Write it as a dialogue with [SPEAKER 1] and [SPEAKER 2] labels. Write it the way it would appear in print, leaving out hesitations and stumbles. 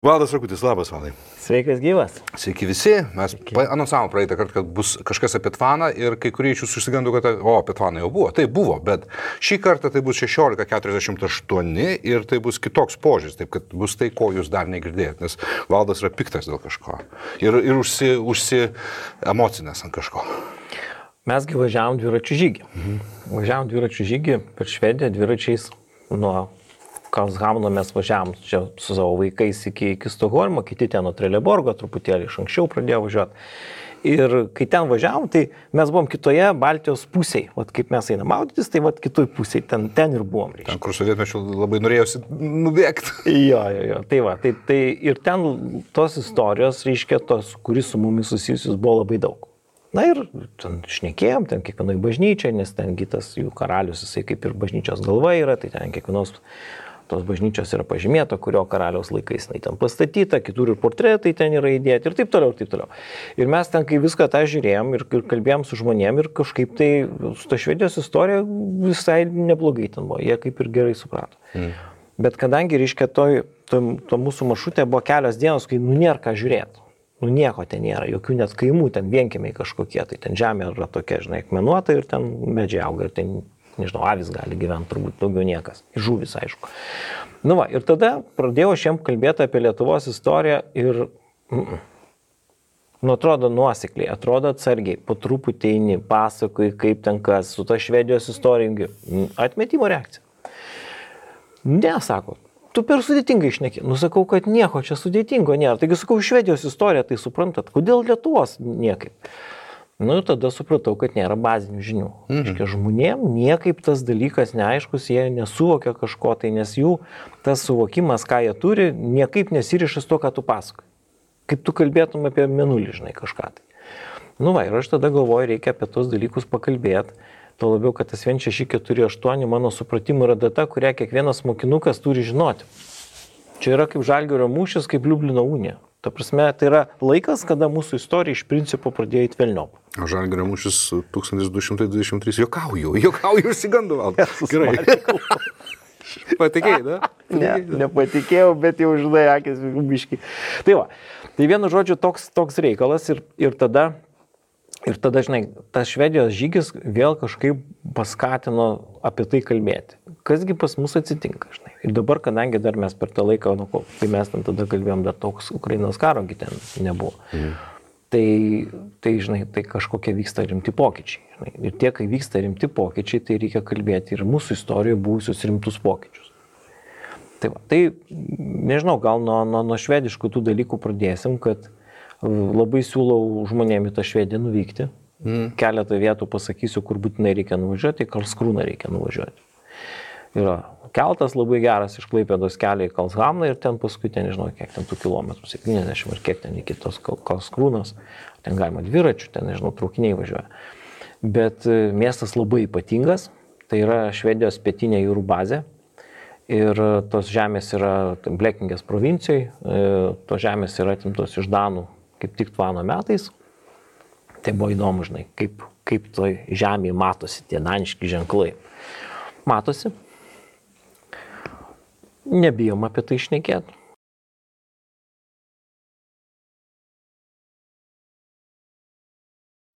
[SPEAKER 1] Valdas Rakutis, labas, Valdai.
[SPEAKER 2] Sveikas gyvas.
[SPEAKER 1] Sveiki visi. Mes anonsavom praeitą kartą, kad bus kažkas apie Tvaną ir kai kurie iš jūsų išsigando, kad apie Tvaną jau buvo. Tai buvo, bet šį kartą tai bus 16:48 ir tai bus kitoks požiūris, taip kad bus tai, ko jūs dar negirdėjot, nes Valdas yra piktas dėl kažko ir emocinės ant kažko.
[SPEAKER 2] Mesgi važiavom dviračių žygį. Važiavom dviračių žygį per Švediją dviračiais nuo Karlshamno mes važiavom čia su savo vaikais iki Stokholmo, kiti ten nuo Trelleborgo, truputėlį iš anksčiau pradėjo važiuoti. Ir kai ten važiavom, tai mes buvom kitoje Baltijos pusėje. Vat kaip mes einam maudytis, tai vat kitoj pusėje, ten ir buvom.
[SPEAKER 1] Ten, kur sovietmečiu labai norėjusi nubėgti.
[SPEAKER 2] Jo. Tai va, tai ir ten tos istorijos, reiškia, tos, kuris su mumis susijusius buvo labai daug. Na ir ten šnekėjom, ten kiekvienoj bažnyčiai, nes ten kitas jų karalius, jisai kaip ir bažnyčios galva yra, tai ten kiekvienos tos bažnyčios yra pažymėta, kurio karaliaus laikais jinai ten pastatyta, kitur ir portretai ten yra įdėti ir taip toliau, ir taip toliau. Ir mes ten, kai viską tą žiūrėjom ir kalbėjom su žmonėm ir kažkaip tai su ta Švedijos istorija visai neblogai ten buvo, jie kaip ir gerai suprato. Bet kadangi, reiškia, to mūsų maršrutė buvo kelios dienos, kai nėra ką žiūrėti. Nieko ten nėra, jokių net kaimų, ten vienkiemiai kažkokie, tai ten žemė yra tokia, žinai, akmenuota ir ten medžiai auga ir ten, nežinau, avis gali gyventi, turbūt daugiau niekas, žuvis, aišku. Nu va, ir tada pradėjau aš jiem kalbėti apie Lietuvos istoriją ir, atrodo nuosekliai, atrodo atsargiai, po truputį eini, pasakoji, kaip ten kas, su ta Švedijos istorija, atmetimo reakcija. Ne, sako. Tu per sudėtingai šneki. Sakau, kad nieko čia sudėtingo nėra. Taigi sakau, Švedijos istoriją, tai suprantat, kodėl Lietuvos niekaip. Ir tada supratau, kad nėra bazinių žinių. Reiškia, žmonėm niekaip tas dalykas neaiškus, jie nesuvokia kažko, tai nes jų tas suvokimas, ką jie turi, niekaip nesiriša su to, ką tu pasakoji. Kaip tu kalbėtum apie mėnulį, žinai, kažką tai. Ir aš tada galvoju, reikia apie tos dalykus pakalbėti. Tuo labiau, kad tas 1648 mano supratimu yra data, kurią kiekvienas mokinukas turi žinoti. Čia yra kaip Žalgirio mūšis, kaip Liublino unija. Ta prasme, tai yra laikas, kada mūsų istorija iš principo pradėjo į velniop.
[SPEAKER 1] O Žalgirio mūšis 1223. Jokauju, išsigandu, Valdas. Gerai. Patikėjai, da?
[SPEAKER 2] Ne, nepatikėjau, bet jau žinai, akis biški. Tai va, tai vienu žodžiu toks reikalas ir tada, žinai, tas Švedijos žygis vėl kažkaip paskatino apie tai kalbėti. Kasgi pas mus atsitinka, žinai. Ir dabar, kadangi dar mes per tą laiką, kai mes ten tada kalbėjom, dar toks Ukrainos karo ten nebuvo. Tai, žinai, tai kažkokie vyksta rimti pokyčiai. Žinai. Ir tie, kai vyksta rimti pokyčiai, tai reikia kalbėti ir mūsų istorijoje buvusius rimtus pokyčius. Tai nežinau, gal nuo švediškų tų dalykų pradėsim, kad labai siūlau žmonėm į tą Švediją nuvykti. Keletą vietų pasakysiu, kur būtinai reikia nuvažiuoti, į Karlskrūną reikia nuvažiuoti. Yra keltas labai geras iš Klaipėdos kelio į Karlshamną ir ten paskui, nežinau, kiek ten tų kilometrų, 70 ar kiek ten iki tos Karlskrūnos. Ten galima dviračių, ten, nežinau, traukiniai važiuoja. Bet miestas labai ypatingas, tai yra Švedijos pietinė jūrų bazė. Ir tos žemės yra Blekingės provincijoje, tos žemės yra atimtos iš Danų kaip tik Tvano metais. Tai buvo įdomu, žinai, kaip toj žemėje matosi tie daniški ženklai. Matosi. Nebijom apie tai šnekėti.